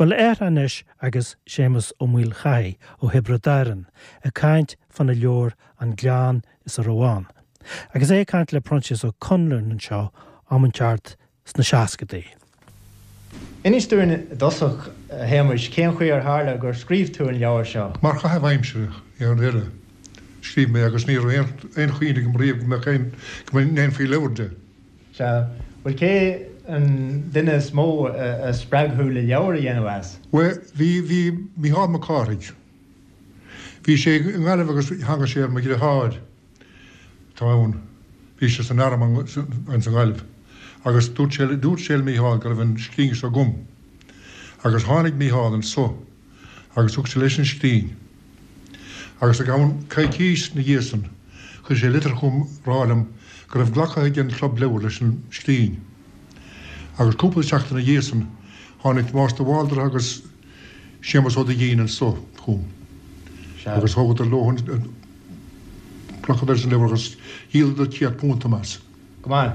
Bhuel, air anois agus Séamus Ó Maolchathaigh ó Thiobraid Árann ag caint fána leabhar An Gleann is a Raibh Ann. Agus é ag caint le Proinsias Ó Conluain anseo am inteacht sna seascadaí. Inis dúinn i dtosach, a Shéamuis, cén chaoi ar tharla gur scríobh tú an leabhar seo? Mar chaitheamh aimsire, ar deireadh, scríobh mé agus ní raibh aon chuimhne agam riamh go mbeadh aon, go ndéanfaí leabhar de. Sea. Bhuel, cé an duine is mó a spreag thú le leabhar a dhéanamh as? Bhuel, bhí, bhí Mícheál Mac Cárthaigh. Bhí sé i nGaillimh agus tháinig sé ar mo dhriotháir. atá ann. Bhí sé san arm ansan i nGaillimh agus dúirt sé, dúirt sé le Mícheál go raibh an scrín seo agam. Agus tháinig Mícheál anso agus thug sé leis an scrín. Agus i gceann coicís 'na dhiaidh san chuir sé litir chugam rá liom go raibh glactha ag an Chlub Leabhar leis an scrín. Agus cúpla seachtain 'na dhiaidh san tháinig Tomás de Bhaldraithe agus Séamus Ó Duigín anso chugam agus thógadar leo an, Ghlacadar leis an leabhar agus dhíoladar £100 dom as. Go maith.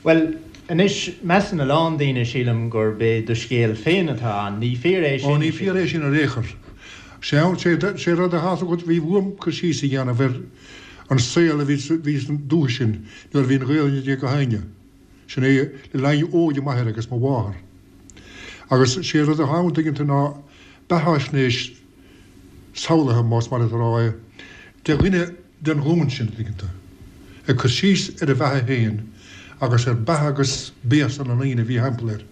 Bhuel, anois, measann a lán daoine, sílim, gurb é do scéal féin atá ann. Ní fíor é sin? Ó, ní fíor é sin ar aon chor. Sé rud atá agat, bhí uaim cur síos a dhéanamh ar an saol a bhí san dúiche sin nuair a bhí an Ghaelainn ag gach éinne. Sin é le linn óige m'athair agus mo mháthar. Agus sé rud atá ann, tuigeann tú, ná beathaisnéis samhlaithe, más maith leat a rá é, de dhuine den ghlúin sin, tuigeann tú, ag cur síos ar a bheatha féin agus ar beatha agus béasa na ndaoine a bhí thimpeall air.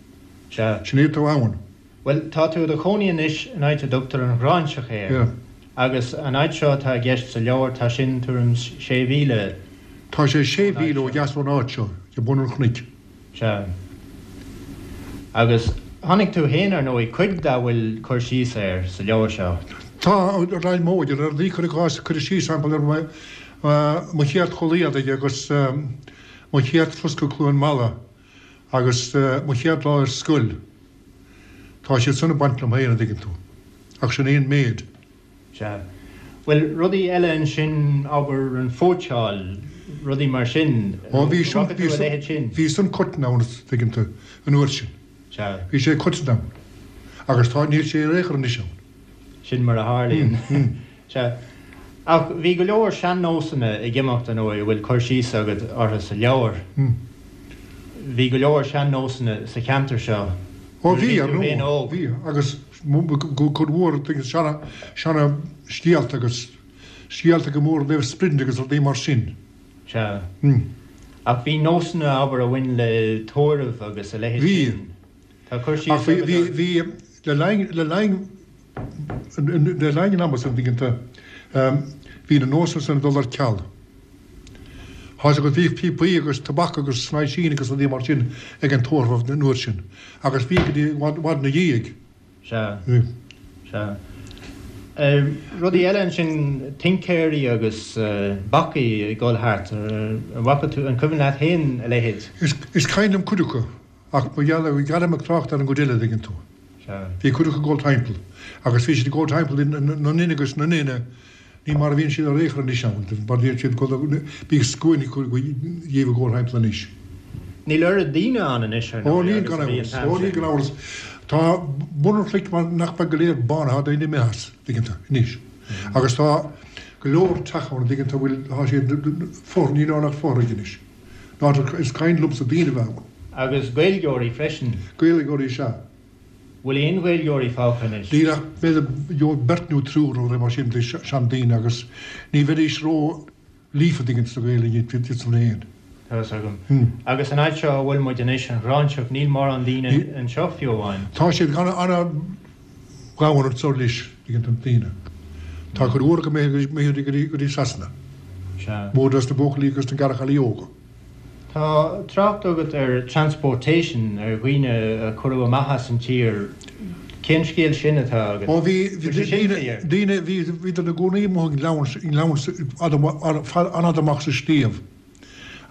Sea. Sin é atá ann. Bhuel, tá tú i do chónaí anois in áit a dtugtar an Ghráinseach air. Yeah. Agus an áit seo atá i gceist sa leabhar, tá sin tuairim 's sé mhíle Tá sé sé mhíle ó dheas ón áit seo, ag bun an chnoic. Sea. Agus chonaic tú féin, ar ndóigh, cuid dá bhfuil cur síos air sa leabhar seo. Tá, le linn m'óige, le rudaí, cuir i gcás, cuireadh síos, sample, ar mo chéad chulaith éadaigh agus mo chéad troscadh Cluain Meala agus mo chéad lá ar scoil. Tá siad san ag baint liom féin, an dtuigeann tú. Ach sin é an méid. Sea. Bhuel, rudaí eile ansin, abair, an phóitseáil, rudaí mar sin, Ó, bhí sin, bhí a leithéid sin? Bhí san coiteann ann, an dtuigeann tú, an uair sin. Sea. Bhí sé coiteann ann. Agus tá, níl sé ar aon chor anois ann. Sin mar a tharlaíonn. Sea. Ach bhí go leor sean-nósanna ag imeacht, ar ndóigh, a bhfuil cur síos agat orthu sa leabhar. Bhí go leor sean-nósanna sa cheantar seo Ó bhí, ar ndóigh, bhí, agus cuid mhór seana, seana scéalta agus scéalta go mór i dtaobh spride agus rudaí mar sin. Sea. Ach bhí nósanna, abair, a bhain le tórramh agus a leithéid sin. Bhí. Tá cur síos agat orthu. Ach bhí, bhí, le linn, le linn, Le linn an ama san, an dtuigeann tú, bhí na nósanna san ag dul ar ceal. Tá 'fhios agat, bhíodh píopaí agus tobac agus snaoisín agus rudaí mar sin ag an tórramh an uair sin, agus bhí go dtí i bhfad ina dhiaidh. Sea. Sea. Rudaí eile ansin, tincéirí agus bacaigh ag dul thart, an bhfaca tú, an cuimhin leat féin a leithéid? Is cuimhin liom cuid acu. Ach ba gheall ar ghearr ag trácht ar an gcuid eile, an dtuigeann tú. Bhí cuid acu ag dul timpeall, agus bhí siad ag dul timpeall na nduine agus na nduine, ní mar a bhíonn siad ar aon chor anois ann, mar bhíonn siad ag dul, bíodh scuainí díobh ag dul timpeall anois. Níl oiread daoine ann anois, ar ndóigh, agus a bhí an t-am sin. Ó níl gan amhras. Tá bun an chnoic mar nach beag go léir bánaithe, tá daoine imithe as, an dtuigeann tú, anois. Agus tá go leor teach ann, an dtuigeann tú, a bhfuil, tá siad, fothraigh, níl ann ach fothraigh anois. Áit is cuimhin liomsa daoine a bheith ann. Agus Gaeilgeoirí freisin. Gaeilgeoirí is ea. Bhfuil aon Ghaeilgeoirí fágtha anois? Níl ach b'fhéidir beirt nó triúr nó rud mar sin de seandaoine agus ní bheidís ró líofa an dtuigeann tú sa Ghaeilge iad san féin. Tá fhios agam. Agus an áit seo a bhfuil muid anois, an Ghráinseach, níl mórán daoine anseo fiú amháin. Tá siad an-ghann anseo anois, an dtuigeann tú, daoine. Tá cuid mhór acu imithe go dtí Sasana. Sea. Mór dos na buachaillí agus na garchailí óga. Tá trácht agat ar transportation, ar dhaoine a cuireadh amach as an tír. Cén scéal sin atá agat? Ó bhí, bhí daoine, daoine, bhí, bhíodar ina gcónaí amuigh i ngleann, i ngleann fada, an-fhada amach sa sliabh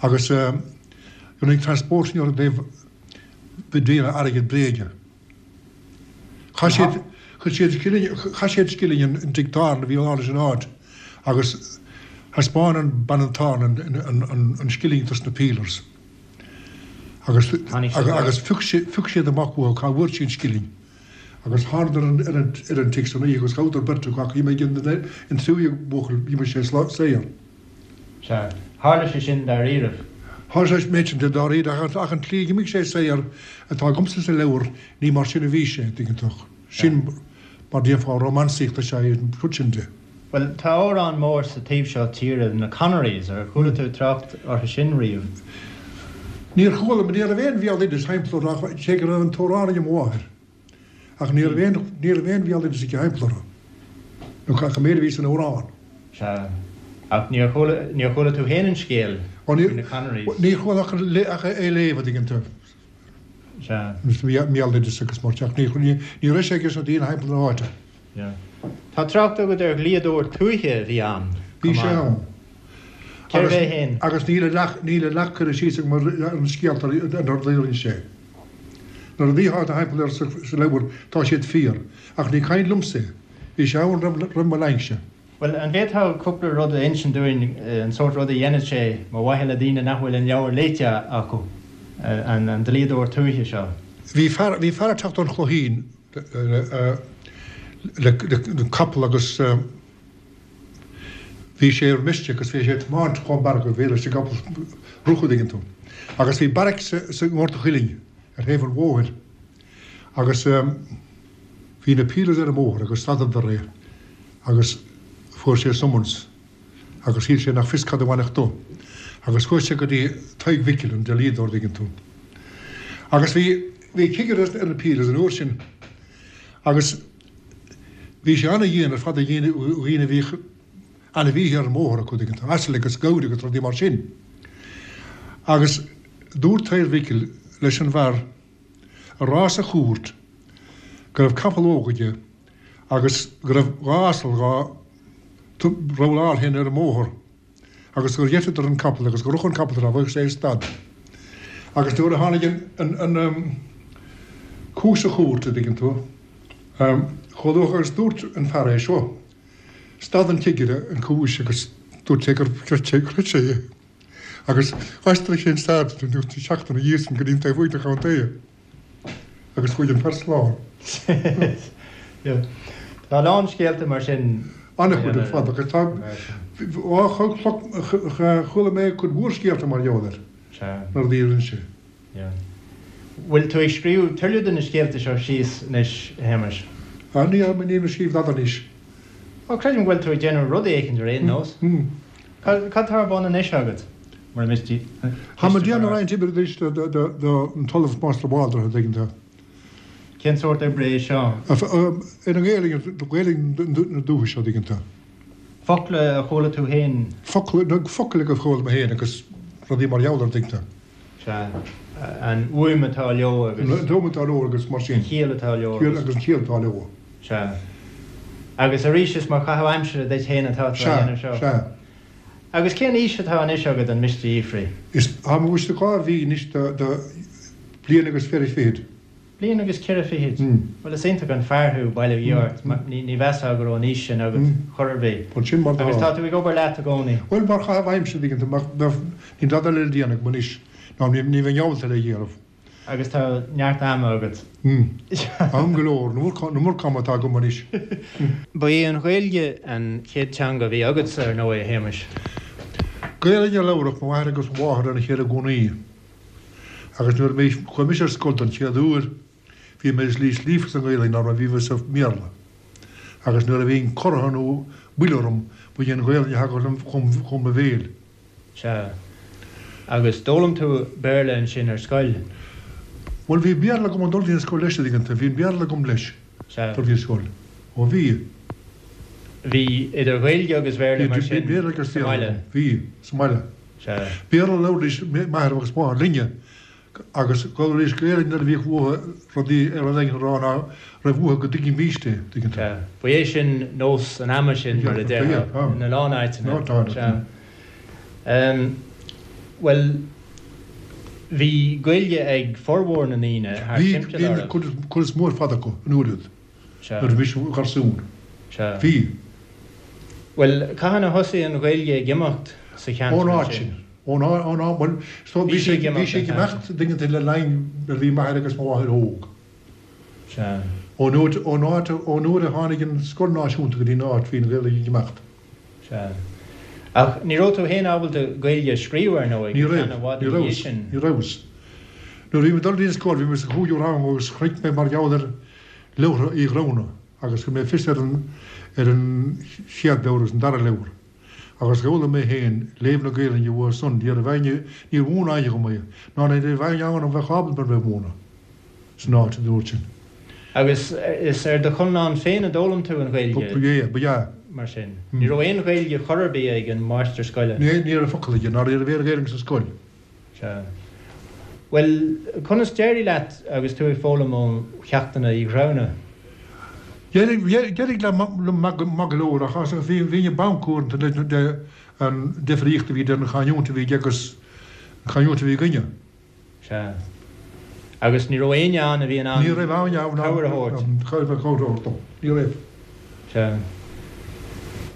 agus rinneadh transportation orthu i dtaobh, i dtaobh airgead bréige. Chaith siad, chuir siad scilling, chaith siad scilling in dtigh tábhairne a bhí ann leis an áit agus thaispeáin an bean an tábhairne an, an, an scilling dos na peelers agus, agus phioc siad, phioc siad amach uathu cá bhfuair sí an scilling. Agus thánadar ar an ar an tigh san oíche agus ghabhadar beirt acu ach dh'imigh an tríú buachaill dh'imigh sé saor. Sea. Tharla sé sin dáiríribh. Tharla sé an méid sin de dáiríre ach an tslí a dh'imigh sé saor atá agamsa sa leabhar ní mar sin a bhí sé, dtuigeann tú. Sin mar déarfá rómánsaíocht is ea é an rud sin de. Bhuel, tá amhrán mór sa taobh seo tíre, na Connerys, ar chuala tú trácht orthu sin riamh? Níor chuala, ní raibh aon bhéaloideas thimpeall orthu ach cé go raibh an t-amhrán ag mo mháthair. Ach ní raibh aon, ní raibh aon bhéaloideas aici thimpeall orthu, nó ach an méid a bhí san amhrán. Sea. Ach níor chuala, níor chuala tú féin an scéal faoi na Connerys? Níor chuala ach ach é a léamh, a dtuigeann tú. Sea. Béaloideas agus mar ach ní, ní raibh sé aige sna daoine thimpeall na háite. Tá trácht agat ar dhlíodóir tuaithe a bhí ann Bhí sé ann. Cérbh é féin? Agus níl a leath, níl a leath curtha síos agam ar an scéalta ar na rudaí a rinne sé. Na rudaí atá thimpeall air sa leabhar, tá siad fíor. Ach ní caint liomsa é. Bhí sé ann roimh, roimh mo linnse. Bhuel, an bhféadfá cúpla rud a insint dúinn, an sórt rud a dhéanadh sé, mar mhaithe le daoine nach bhfuil an leabhar léite acu, an dlíodóir tuaithe seo? Bhí fear, bhí fear ag teacht ón Chloichín le, le capall agus bhí sé ar miste agus bhí sé ag tiomáint chomh mear go bhféadfadh leis an gcapall rith an dtuigeann tú. Agus bhí beairic sa, sa nGort a' Chuilinn ar thaobh an bhóthair agus bhí na peelers ar an mbóthar agus stadadar é agus fuair sé summons agus shíl sé nach fios cad a bhainfeadh dó. Agus chuaigh sé go dtí Tadhg Mhicil, an dlíodóir, dtuigeann tú. Agus bhí, bhí cigire ar na peelers an uair sin agus bhí sé ana-dhian ar fad ar dhaoine, dhaoine a bhíodh ainmhíthe ar an mbóthar acu, dtuigeann tú, asail agus gabhair agus rudaí mar sin. Agus dúirt Tadhg Mhicil leis an bhfear a rá sa chúirt go raibh capall óg aige agus go raibh dha asal dhá rabhláil féin ar an mbóthar agus gur gheiteadar an capall agus gur rith an capall tráth bheadh sé ar stad. Agus nuair a tháinig an an cúis sa chúirt a dtuigeann tú, chomh luath agus dúirt an fear é seo, stad an cigire an cúis agus dúirt sé gur chreid sé chreid sé é. Agus d'aistrigh sé an staid an tseachtain ina dhiaidh sin go dtí an taobh thuaidh de chontae. Agus chuaigh an fear slán. Tá a lán scéalta mar sin. An-chuid ar fad agus tá, chuala mé cuid mhór scéalta mar gheall air na rudaí a rinne sé. Bhfuil tú ag scríobh tuilleadh de na scéalta seo síos anois, a Shéamais? Níl, nílim ag scríobh dada anois. Ó, creidim go bhfuil tú ag déanamh rud éicint ar aon nós. Cad tá ar bun anois agat, mura miste? Táim ag déanamh roinnt oibre anois don tOllamh Máistir Bhaldra, an dtuigeann tú. Cén sórt oibre é seo? Ar an nGaelainn, Gaelainn na dúiche seo, an dtuigeann tú. Focla a chuala tú féin? Focla, focail a chuala mé féin agus rudaí mar gheall air, an dtuigeann tú. Sea. An fhuaim atá leo agus. An fhuaim atá leo agus mar sin. An chiall atá leo agus. Agus an chiall atá leo. Sea. Agus arís is mar chaitheamh aimsire duit féin atá tú á dhéanamh seo. Sea, sea. Agus cén aois atá anois agat, an miste a fhiafraí? Is, tá mé anois dhá mhí anois de bhliain agus ceithre fichid. Bliain agus ceithre fichid? Bhuel, is iontach an fear thú, bail ó Dhia ort. Ní mheasfá go raibh an aois sin agat chor ar bith. Bhuel, sin mar atá. Agus tá tú ag obair leat i gcónaí? Bhuel, mar chaitheamh aimsire, an dtuigeann tú, mar níl dada eile le déanamh agam anois, ná ní bheinn ábalta é a dhéanamh. Agus tá neart ama agat. Am go leor, an iomarca ama atá agam anois. Ba í an Ghaeilge an chéad teanga a bhí agatsa, ar ndóigh, a Shéamais. Gaelainn a labhradh mo mháthair agus mo mháthair lena chéile i gcónaí. Agus nuair a bhí, chuaigh mise ar scoil don chéad uair, bhí mé níos líofa sa nGaelainn ná mar a bhí mé sa mBéarla. Agus nuair a bhínn corraithe nó buile orm, ba í an Ghaelainn a thagadh liom chun mo bhéil. Sea. Agus d'fhoghlaim tú Béarla ansin ar scoil? Bhuel, bhí Béarla agam ag dul dtí an scoil leis, an dtuigeann tú. Bhí an Béarla agam leis, Sea. dul dtí an scoil. Ó bhí. Bhí idir Ghaeilge agus Bhéarla mar Bhí sin Béarla agus sa Bhéarla mbaile? agam. Bhí, sa mbaile. Sea. Béarla a labhraídís m'athair agus máthair linne agus labhraídís Gaelainn nuair a bhíodh uathu rudaí ar rud éigin a rá ná raibh uathu go dtuigfimíst é, tuigeann tú. Sea. Ba é sin nós an ama sin, mar a déarfá, ina lán áiteanna. Sea. Bhuel, bhí Gaeilge ag formhór na ndaoine thart Bhí, timpeall bhí oraibh. an cuid is mó ar fad acu an uair úd. Sea. Nuair a bhí mise i mo gharsún. Sea. Bhí. Bhuel, cathain a thosaigh an Ghaeilge ag imeacht sa cheantar Ón áit ansin? sin. Ón áit, ón áit, bhuel, so Bhí bhí sí sé, ag bhí imeacht sé an ag t-am imeacht sin. dtuigeann tú le linn nuair a bhí m'athair agus mo mháthair óg. Sea. Ón uair, ón áit, ón uair a tháinig an scoil náisiúnta go dtí an áit, bhí an Ghaeilge ag imeacht. Sea. Ach ní raibh tú féin ábalta Gaeilge a scríobh, ar ndóigh, Ní go raibh. ceann i bhfad Ní ina dhiaidh rabhas. sin. Ní rabhas. Nuair a bhí mé ag dul dtí an scoil, bhí mé sa chúigiú rang agus chonaic mé mar gheall ar leabhartha Uí Ghramhna agus chuir mé fios ar an, ar an chéad leabhar agus an dara leabhar. Agus d'fhoghlaim mé féin léamh na Gaelainne uathu san, ní raibh éinne, níor mhúin éinne dhom é, ná ní raibh éinne ann a bheadh ábalta mar bheith ag múineadh san áit an uair sin. Agus is ar do chonlán féin a d'fhoghlaim tú an Ghaeilge? Ba ea, ba ea. Mar sin. Ní raibh aon Ghaeilge chor ar bith ag an máistir scoile? Ní raibh focal aige, ná ní raibh aon Ghaeilge sa scoil. Sea. Bhuel, conas d'éirigh leat agus tú ag foghlaim ó cheachtanna Uí Ghramhna? D'éirigh liom maith go leor ach bhínn ag bancadh uaireanta le an difríocht a bhí idir an chanúint a bhí aige agus an chanúint a bhí againne. Sea. Agus ní raibh éinne ann a bhí in ann Ní raibh éinne ann cabhair a thabhairt? Cabhair a thabhairt dom. Ní raibh. Sea.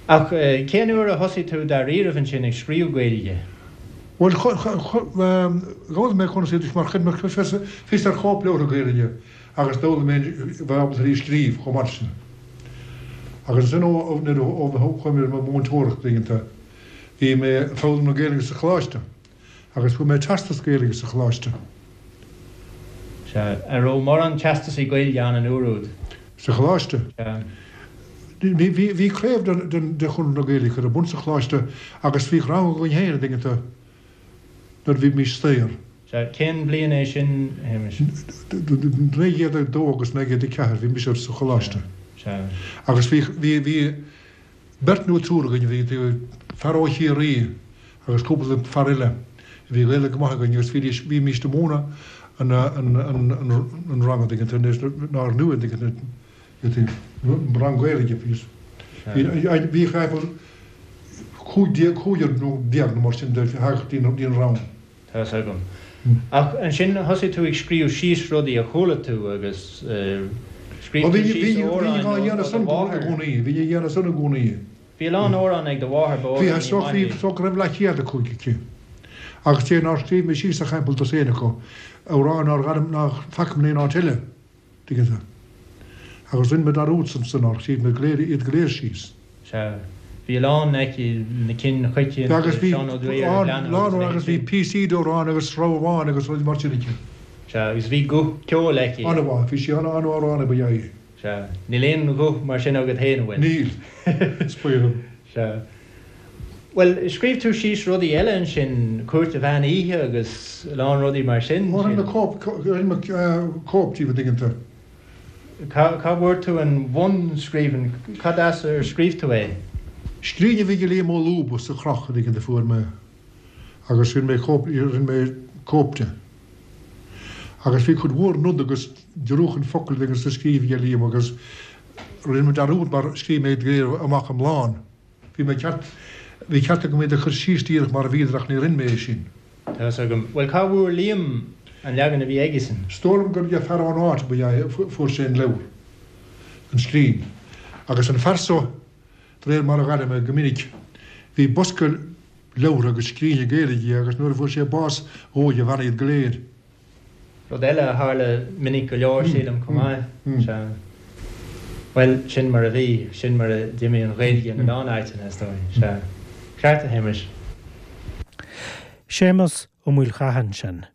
Ach cén uair a thosaigh tú dáiríribh ansin ag scríobh Gaeilge? Bhuel, d'fhoghlaim mé conas iad mar chuir mé fios ar chóipleabhartha Gaelainne agus d'fhoghlaim mé bheith ábalta í a scríobh chomh maith sin. Agus ansin ó nuair a chuaigh mé ar mo mhúinteoireacht laethanta, bhí mé ag foghlaim na Gaelainne sa choláiste agus fuair mé teastas Gaeilge sa choláiste. Sea. An raibh mórán teastasaí Gaeilge ann an uair úd? Sa choláiste? Sea. Bhí craobh de Chonradh na Gaeilge curtha ar bun sa choláiste agus bhíodh rang againn féin, an dtuigeann tú, nuair a bhímís saor. Sea, cén bhliain é sin, a Shéamais? 1902 agus 1904, bhí mise sa choláiste. Sea. Agus bhí, bhí beirt nó triúr againn, bhí fear ó Chiarraí agus cúpla fear eile, bhí Gaeilge go maith againn agus bhídís, bhímís ag múineadh an, an, an rang, an dtuigeann tú, nár nua, an dtuigeann tú. Rang Gaeilge bhí bhí timpeall 15 cúigear nó déag nó mar sin de theacht dtí an rang. Tá fhios agam. Ach ansin thosaigh tú ag scríobh síos rudaí a chuala tú agus scríobh tú síos amhráin ó do mháthair. Bhí á dhéanamh san i gcónaí. Bhí a lán amhrán ag do mháthair, ba amhránaí maith í. Bhí, is dócha go raibh leathchéad acu aici. Agus cé nár scríobh mé síos ach timpeall dosaen acu, amhráin nár nár faca mé in aon áit eile. Tuigeann tú. Agus rinne mé dearúd ansan nár scríobh mé go léir, iad go léir síos. Sea. Bhí a lán aici, na cinn choitianta, Agus bhí Seán Ó Duibhir, a lán, lán, agus bhí píosaí d'amhráin agus sreabháin agus rudaí mar sin aici. Sea, agus bhí guth ceoil aici. An-mhaith, bhí sí an-amhránaí ba ea í. Sea. Níl aon ghuth mar sin agat féin, an bhfuil? Níl. Is baol dom. Sea. Bhuel, scríobh tú síos rudaí eile ansin, Cúirt an Mheán Oíche agus a lán rudaí mar sin. Ó, rinne mé cóip, rinne mé cóip díobh, an dtuigeann tú. Cá, cá bhfuair tú an bhunscríbhinn, cad as ar scríobh tú é? Scríbhinn a bhí ag Liam Ó Lúba sa Chroch, an dtuigeann tú, fuair mé agus rinne mé cóip, rinne mé cóip de. Agus bhí cuid mhór nod agus giorrúchán focal agus sa scríobh ag Liam agus rinne mé dearúd mar scríobh mé iad go léir amach iomlán. Bhí mé ceart, bhí ceart agam iad a chur síos díreach mar a bhíodar ach ní rinne mé é sin. Tá fhios agam. Bhuel, cá bhfuair Liam an leagan a bhí aigesean? Is dóigh liom gur ag fear ón áit ba ea é, fuair sé an leabhar, an scríbhinn. Agus an fear so, de réir mar a dh'airigh mé go minic, bhí bosca leabhartha agus scríbhinne Gaeilge aige agus nuair a fuair sé bás dhóigh a bhean iad go léir. Rud eile a tharla minic go leor, sílim, chomh maith. Sea. Bhuel, sin mar a bhí, sin mar a d'imigh an Ghaeilge in a lán áiteanna, is dóigh. Sea. Ceart, a Shéamais. Séamus Ó Maolchatha ansin.